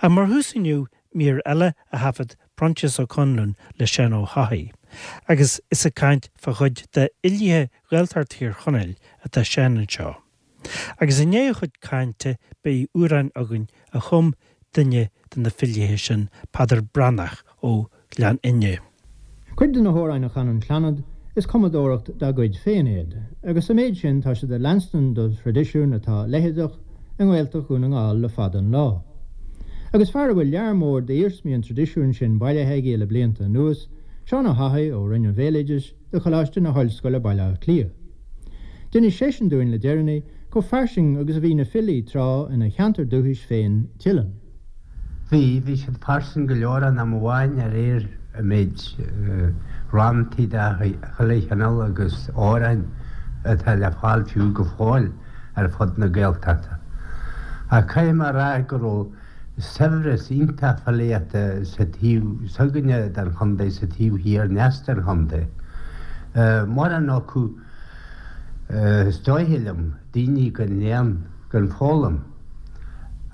Ach mar thús inniu, mír eile a thaifead Proinsias Ó Conluain le Seán Ó hEochaidh. Agus is ag caint fá chuid de fhilithe Ghaeltacht Thír Chonaill atá Seán anseo. Agus i ndiaidh a chuid cainte beidh amhrán againn a chum duine de na filithe sin, Peadar Breathnach ó Ghleann Fhinne. Cuid de na hamhráin a chan an Clannad, is cumadóireacht dá gcuid féin iad, agus sa méid sin tá siad ag leanstan do thraidisiún atá leitheadach i nGaeltacht Dhún na nGall le fada an lá. Agus fear a bhfuil lear mór d'iarsmaí an traidisiúin sin bailithe aige le blianta anuas, Seán Ó hEochaidh ó Roinn an Bhéaloidis de Choláiste na hOllscoile Baile Átha Cliath. D'inis seisean dúinn le deireanaí chomh fairsing agus a bhí na filí tráth ina cheantar dúchais féin, Teileann. Bhí, bhí siad fairsing go leor in am amháin de réir an méid ranntaí de chuile chineál agus amhráin atá le fáil fiú go fóill ar fud na Gaeltachta. Ach caithfidh mé a rá go raibh saibhreas iontach filíochta sa taobh s'againne den chontae, sa taobh thiar ndeas den chontae. Mórán acu, is dóiche liom, daoine gan léann, gan foghlaim.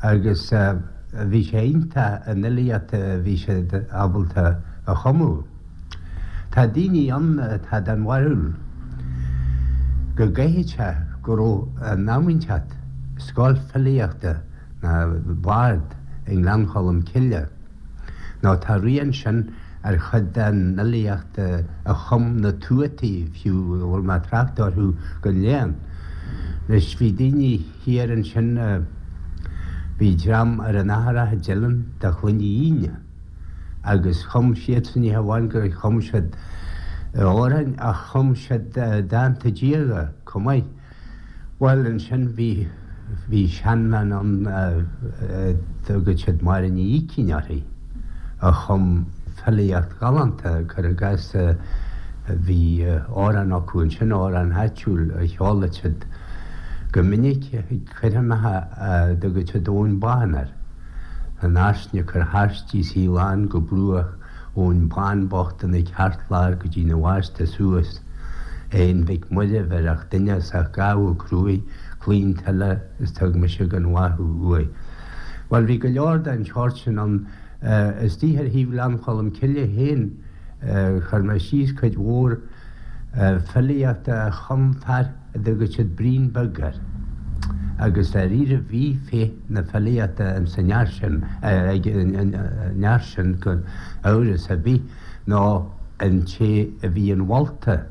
agus bhí sé iontach an fhilíocht a bhí siad ábalta a chumadh. Tá daoine ann atá den bharúil go gcaithfidh sé go raibh in am inteacht scoil filíochta ná bard i nGleann Cholm Cille. Nó tá rian sin ar chuid den fhilíocht a chum na tuataí fiú a bhfuil mé ag trácht orthu gan léann. Anois bhí daoine thiar ansin, bhí dream ar an Atharach i dTeileann de Chloinne Fhíne agus chum siadsan ní hamháin gur chum siad amhráin ach chum siad dánta diaga chomh maith. Bhuel, ansin bhí, bhí seanbhean ann a dtugadh siad Máire Ní Ícín uirthi, a chum filíocht ghalánta, cuir i gcás, bhí amhrán acu ansin, amhrán áitiúil a cheoladh siad go minic ag coirmeacha a dtugadh siad Eoin Bán air. An fhairsin ag cur thairsti 's í lán go bruach Eoin Bán bocht ina cheartlár go dtí na bhásta suas. Aon Mhic Muire bheir duine as ach gabhadh cruaidh claon tuile is tug mise gan mhaith thú uaidh. Bhuel bhí go leor den tseort sin ann. Istigh ar thaobh Ghleann Cholm Cille féin chuir mé síos cuid mhór filíochta a chum fear a dtugadh siad Brian Beag air, agus dáiríre bhí féith na filíochta ins an fhear sin, ag an fhear sin gan amhras ar bith, nó an té a bhí inmholta,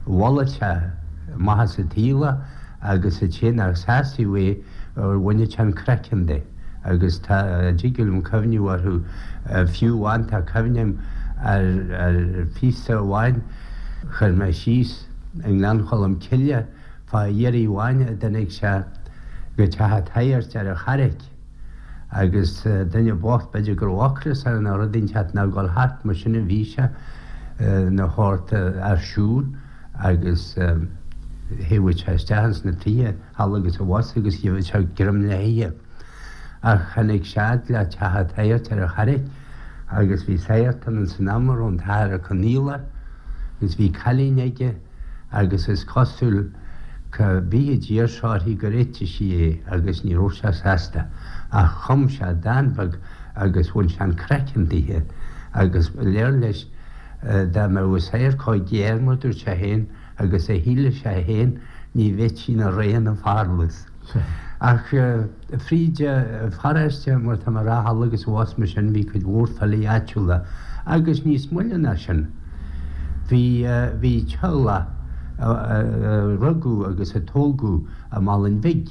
mholadh sé maitheas an tsaoil é agus an té nach sásaíodh é bhaineadh sé an craiceann de, agus tá, dtig liom cuimhniú orthu, fiú amháin tá cuimhne agam ar phíosa amháin chuir mé síos, i nGleann Cholm Cille fá iarraidh amháin a dtáinig sé go teach an tsagairt ar an Charraic agus duine bocht b'fhéidir go raibh ocras air nó rud inteacht nó ag dul thart mar sin a bhí sé ina shórt fhear siúil agus théadh sé isteach ins na tithe thall agus abhus agus gheibheadh sé greim le hithe. Ach tháinig sé fhad le teach an tsagairt ar an Charraic agus bhí sagart ann ins an am a raibh an tAthair Ó Conaola agus bhí cailín aige agus is cosúil cá bith a d'iarr sé uirthi gur eitigh sí é agus ní raibh sé sásta ach chum sé dán beag agus bhain sé an craiceann dithe agus léir leis dá mbeadh an sagart chomh géar mar dúirt sé féin agus a shíleadh sé féin ní bheití ina ré ina pharlús. Ach fríd an pharóiste, mar tá mé a rá thall agus abhus mar sin, bhí cuid mhór filí áitiúla agus níos moille ná sin bhí, bhí teaghlach a rugadh agus a tógadh i Málainn Bhig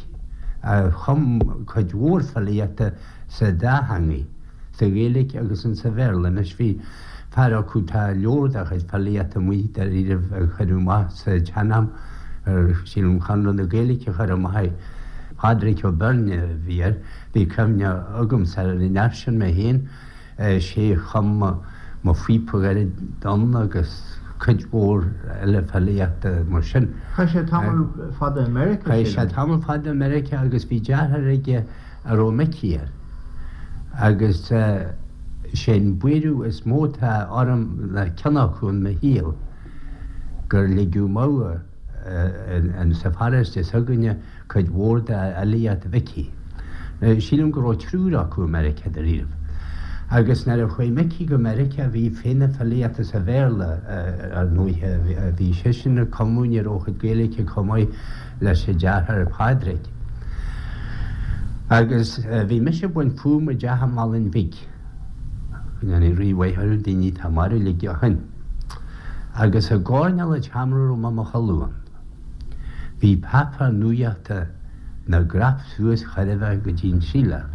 a chum cuid mhór filíochta sa dá theangaidh, sa Ghaeilge agus insa Bhéarla. Anois bhí fear acu, tá leabhar dá chuid filíochta amuigh dáiríribh a cuireadh amach sa tsean-am, sílim Conradh na Gaeilge a chuir amach é, Pádraig Ó Beirne a bhí air, bhí cuimhne agamsa ar an fhear sin mé féin, sé a chum Mo Phíopa Ghairid Donn agus cuid mhór eile filíochta mar sin. Chaith sé tamall fada i Meiriceá, sílim. Chaith sé tamall fada i Meiriceá agus bhí deartháir aige a raibh Micí air. Agus sé an buaireamh is mó atá orm le ceann acu in mo shaol gur ligeadh amú in sa pharóiste s'againne cuid mhór de fhilíocht Mhicí. Sílim go raibh triúr acu i Meiriceá dáiríribh. Agus nuair a chuaigh Micí go Meiriceá bhí féith na filíochta sa Bhéarla ar ndóighe. Bhí seisean ag cumadh, ní raibh a chuid Gaeilge chomh maith leis a dheartháir Pádraig. Agus bhí mise ag baint fúm i dteach i Malainn Bhig. Go ndéanaí Rí mhaith orthu, daoine atá marbh uilig ó shin. Agus i gcoirnéal an tseomra a raibh mé i mo chodladh ann, bhí páipéar nuachta 'na gcrap suas chóir a bheith go dtí an tsíleáil.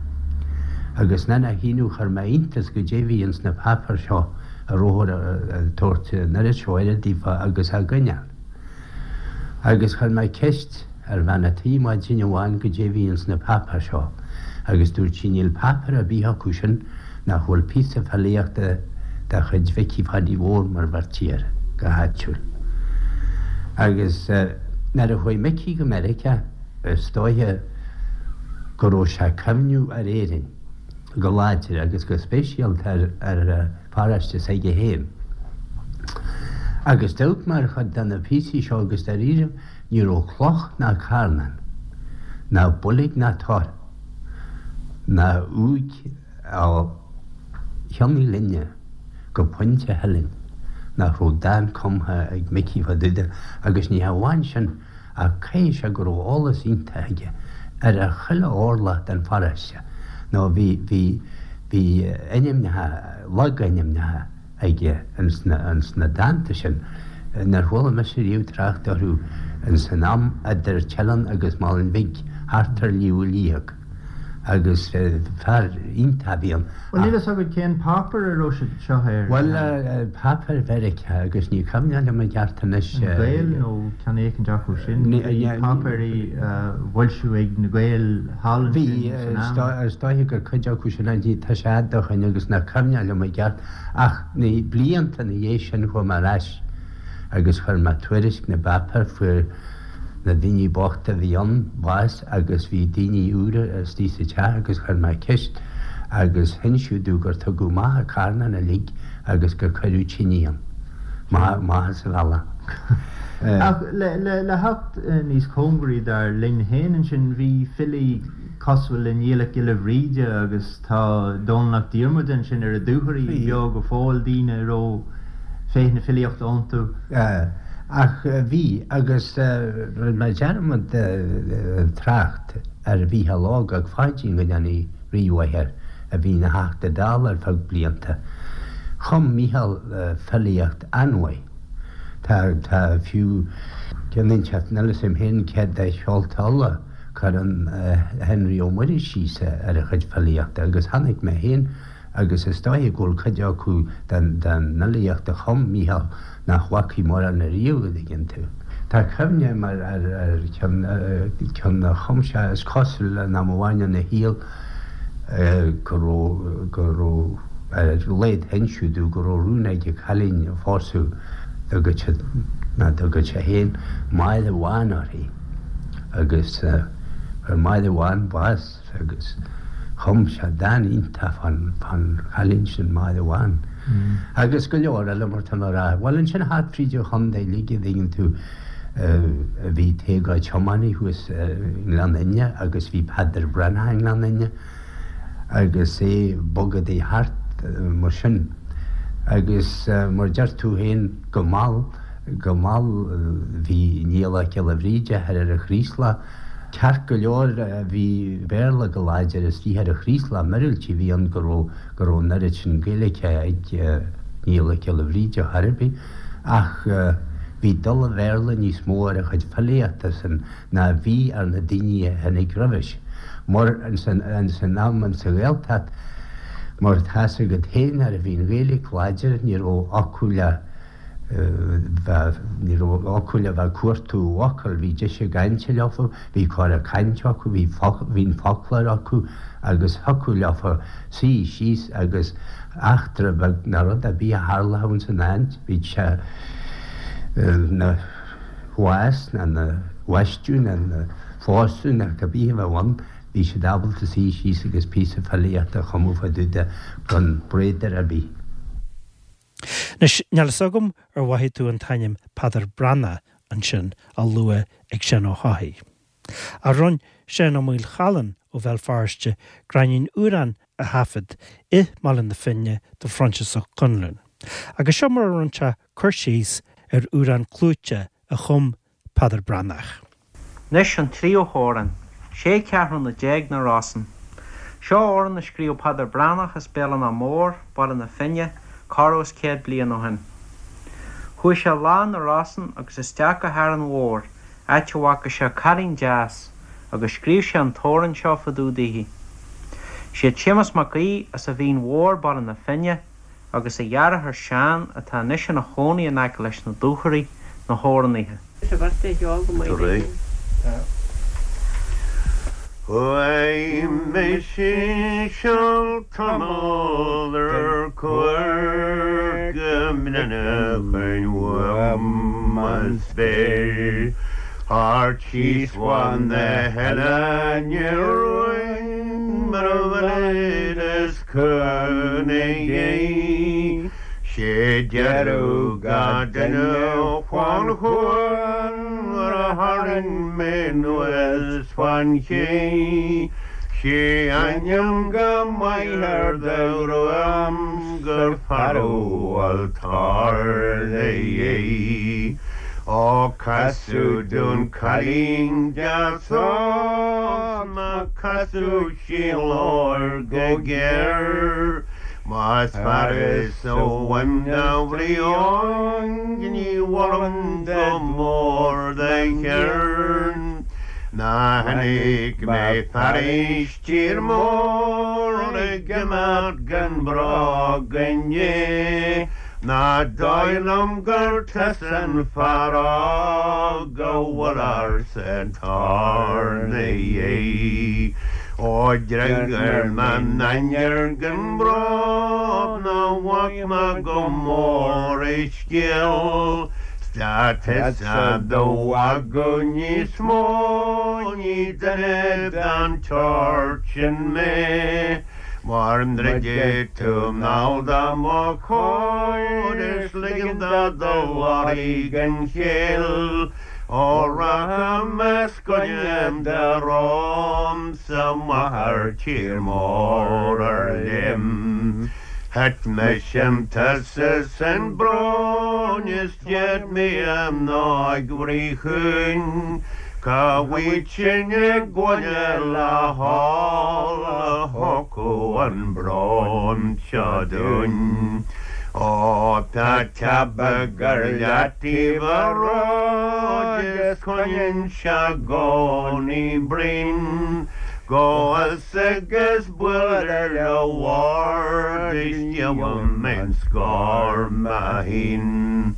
Agus ní nach ionadh chuir mé iontas goidé bhí ins na páipéir seo a rabhthar ag tabhairt an oiread seo aire daofa agus á gcoinneáil. Agus chuir mé ceist ar bhean a' tí maidin amháin goidé bhí ins na páipéir seo agus dúirt sí níl páipéar ar bith acu sin nach bhfuil píosa filíochta de chuid Mhicí Phaidí Mhóir mar bheirtí air go háitiúil. Agus nuair a chuaigh Micí go Meiriceá is dóiche go raibh sé ag cuimhniú ar Éirinn go láidir agus go speisialta ar an pharóiste s'aige féin. Agus d'amharc mé ar chuid de na píosaí seo agus dáiríre ní raibh cloch ná carnán ná boilg ná tor ná uaigh ó Chionn Uí Fhloinne go Pointe Theilinn nach raibh dán cumtha ag Micí fá dtaobh de agus ní hamháin sin ach caithfidh sé go raibh eolas iontach aige ar chuile orlach den pharóiste nó bhí bhí bhí ainmneacha logainmneacha aige ins na ins na dánta sin nár chuala mise riamh trácht orthu ins an am idir Teileann agus Malainn Bhig thart ar Shliabh Liag agus fear iontach a bhí ann. Bhuel, níl fhios agat cén páipéar a raibh siad seo air? Bhuel, páipéar Mheiriceá agus ní cuimhneach liom i gceart anois. An Gael nó ceann éicint acu sin? Bhí páipéirí á bhfoilsiú ag na Gaeil thall ansin san am. Bhí, is dóiche gur cuid acu sin é, tá sé fhada ó shin agus nach cuimhneach liom i gceart ach na blianta ina dhiaidh sin chuaigh mé ar ais agus chuir mé tuairisc na bpáipéar, fuair na daoine bochta a bhí ann bás agus bhí daoine úra istigh sa teach agus chuir mé ceist agus hinseadh domh gur tugadh amach an carnán uilig agus gur cuireadh tine ann. Maith as a bhealach. Ach le theacht níos cóngaraí dár linn féin ansin, bhí filí cosúil le Niall 'Ac Giolla Bhríde agus Tá Dónall Mac Diarmada ansin ar a dúthraí beo go fóill, daoine a raibh féith na filíochta iontu. Ach bhí, agus rinne mé dearmad trácht ar Mhícheál Óg 'Ac Pháidín, go ndéanaí Rí mhaith air, a bhí ina Theachta Dála ar feadh blianta. Chum Mícheál filíocht an-mhaith. Tá, tá fiú ceann inteacht, níl 'fhios a'm féin céard é Seolta Uladh. Cuireann Henry Ó Muirí síos ar a chuid filíochta agus chonaic mé féin agus is dóiche go bhfuil cuid acu den fhilíocht a chum Mícheál nach bhfacaidh mórán ariamh, an dtuigeann tú. Tá cuimhne agam ar cheann a chum sé, is cosúil, in am amháin ina shaol go raibh, go raibh, ar a laghad hinseadh domh go raibh rún aige cailín a phósadh, dtugadh siad, ná dtugadh sé féin, Máire Bhán uirthi. agus fuair Máire Bhán bás agus chum sé dán iontach fán chailín sin, Máire Bhán. Agus go leor eile mar tá mé a rá. Bhuel ansin thart fríd an chontae uilig an dtuigeann tú bhí Tadhg Ó Tiománaí thuas i nGleann Fhinne agus bhí Peadar Breathnach i nGleann Fhinne agus é bogadaí thart mar sin. Agus mar deir tú féin go mall, Go mall bhí Niall 'Ac Giolla Bhríde thoir ar an Chraoslach. Ceart go leor bhí Béarla go láidir istigh ar an Chraoslach, míorúilt a bhí ann go raibh go raibh an oiread sin Gaeilge ag Niall 'Ac Giolla Bhríde chor ar bith ach bhí dul an Bhéarla níos mó ar a chuid filíochta san ná bhí ar na daoine a tháinig roimhis. Mar ins an am ins an Ghaeltacht mar tá's agat féin nuair a bhí an Ghaeilge láidir ní raibh acu le Ní raibh acu le bheith ag cuartú focal, bhí deis a gcainte leofa, bhí cora cainte acu, bhí bhí an foclóir acu agus thiocfadh leofa suí síos agus eachtra beag ná rud ar bith a tharlódh ins an áit, bíodh sé ina bhás ná ina bhaisteadh ná ina phósadh ná cibé a bheadh ann, bhí siad ábalta suí síos agus píosa filíochta a chumadh fá dtaobh de gan bradar ar bith. Anois, níl fhios agam ar mhothaigh tú an t-ainm Peadar Breathnach ansin á lua ag Seán Ó hEochaidh. Ach rinn Seán Ó Maolchallann ó Bhéal Feirste gráinnín amhrán a thaifead i mBaile na Finne do Phroinsias Ó Conluain. Agus seo mar a rinn sé cur síos ar amhrán clúite a chum Peadar Breathnach. Anois an tríú hamhrán, Sé Ceathrúna Déag na Rosann. Seo amhrán a scríobh Peadar Breathnach as Béal an Átha Mór, Baile na Finne, corradh is 100 bliain ó shin. Chuaigh sé lá 'na Rosann agus isteach go hÁrainn Mhór, áit a bhfaca sé cailín deas, agus scríobh sé an t-amhrán seo fá dtaobh daoithi. Siad Séamus Mac Aoidh as an Mhín Mhór, Baile na Finne, agus a dheartháir Seán, atá anois ina chónaí in aice leis na Dúchoraidh, na hamhránaithe. Chuaigh mise seal tamall ar cuairt go mbreathnóchainn uaim an spéir Thart síos fan na hoileáin Rúin mar a bhfuil is Cúnamh Dé, sé deireadh gach duine fán chuan nuair a tharraing mé anuas fán ché. Sé ainm go maith ar do ghruaim 's gur fear a bhfuil tarlaithe. Ó casadh dún cailín deas óg 's má casadh sí labhair go géar. Más fearas a bhain do bhrión ní mholaim go mór do cheird. Ná chonaic mé fairis tír mór ag imeacht gan bróg inné. Ná dóigh liom gur tusa an fear óg a bhfuil ársa tarlaithe. Ó d'fhreagair m'ainnir gan bróg ná bhac mé go mór a scéal 's dá tusa do mhagadh níos mó ní duine den tseort sin mé. Mar ndruidfidh tú anall do mo chomhair is ligean do do lorg an chéill. Ó rachaidh mé 's go ndéan do romhamsa amach ar tír mór ar léim. Thit mise tusa san brón is d'fhéad mé a mná bhrí chúin. Cá bhfuil sin i gcoinne le hál a thiocfadh an brón seo dúinn? Ó tá teabaigh ar leataobh a róid is coinníonn sé i gcónaí braon go bhfios agus buail ar le bhord is gheobhaidh mé an scór mé féin.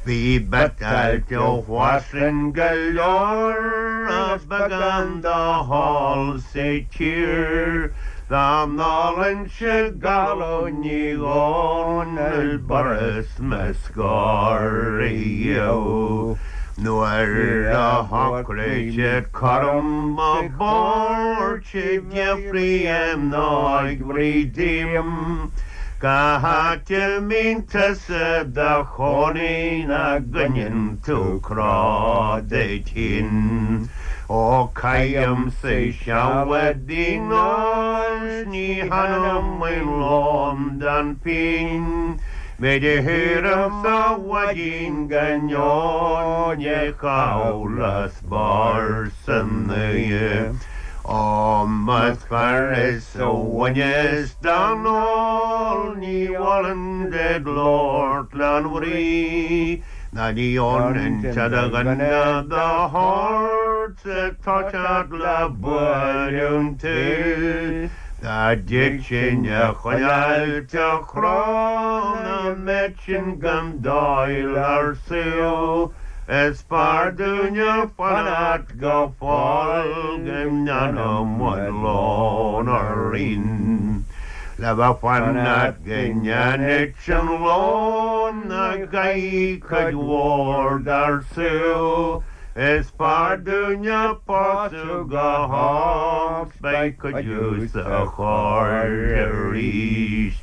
Bhí biotáilte fairsing go leor is beagán dá hól sa tír. Dá n-ólfainnse galún ní Dhomhnaill b'fhurast mo scór a gheobhadh. Nuair a shocraigh siad cúram mo bord sé d'fhiafraigh a mhnáigh bhrí díom, Cá háit a mbíonn tusa do chónaí nach gcoinníonn tú cró duit féin? Ó caithimse seal i dtigh óil 's ní hanaim aon lón don phínn, Méid a shaoram sa mhaidin go ndeonaí chaitheamh le spor san oíche. Ó más fearr is a bhaineas den ól ní mholfainn duit labhairt len bhrí ná ní fhónann sé do dhuine do shórt 's ag toiseacht le bualadh tú. Dá dtitfinn a choinneáil te chró ná mbeadh sin gan dáil ar saol is fearr dúinne fanacht go fóill go ndéanfaidh muid lón orainn. Le bheith fanacht go ndéanfaidh sin lón a gcaithfidh cuid mhór dár saol is fearr dúinne pósadh go hóg 's beidh cuidiú sa chóir arís.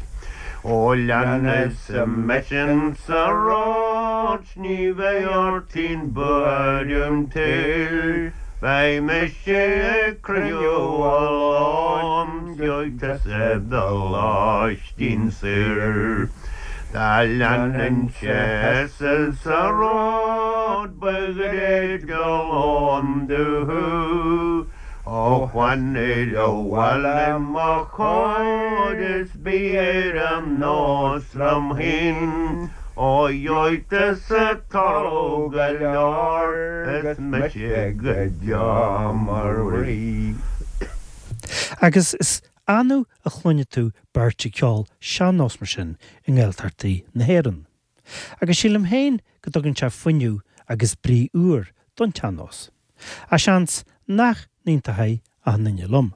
Ó leanfadh mise sa ród 's ní bheidh ort aon bhuaireamh an tsaoil. Beidh mise ag cruinniú a lán gheobhaidh tusa do lóistín saor. Dá leanfainnse sa ród ba ghoirid do lón domh. Ó fan abhaile mo chóir is bí ar an nós liom féin. Ó gheobhaidh tusa togha go leor is mise go deo mar rí. Agus is annamh a chluinfidh tú beirt ag ceol sean-nós mar sin i nGaeltachtaí na hÉireann. Agus sílim féin go dtugann sé fuinneamh agus brí úr don tsean-nós. Ach seans nach n-aontóidh achan duine liom.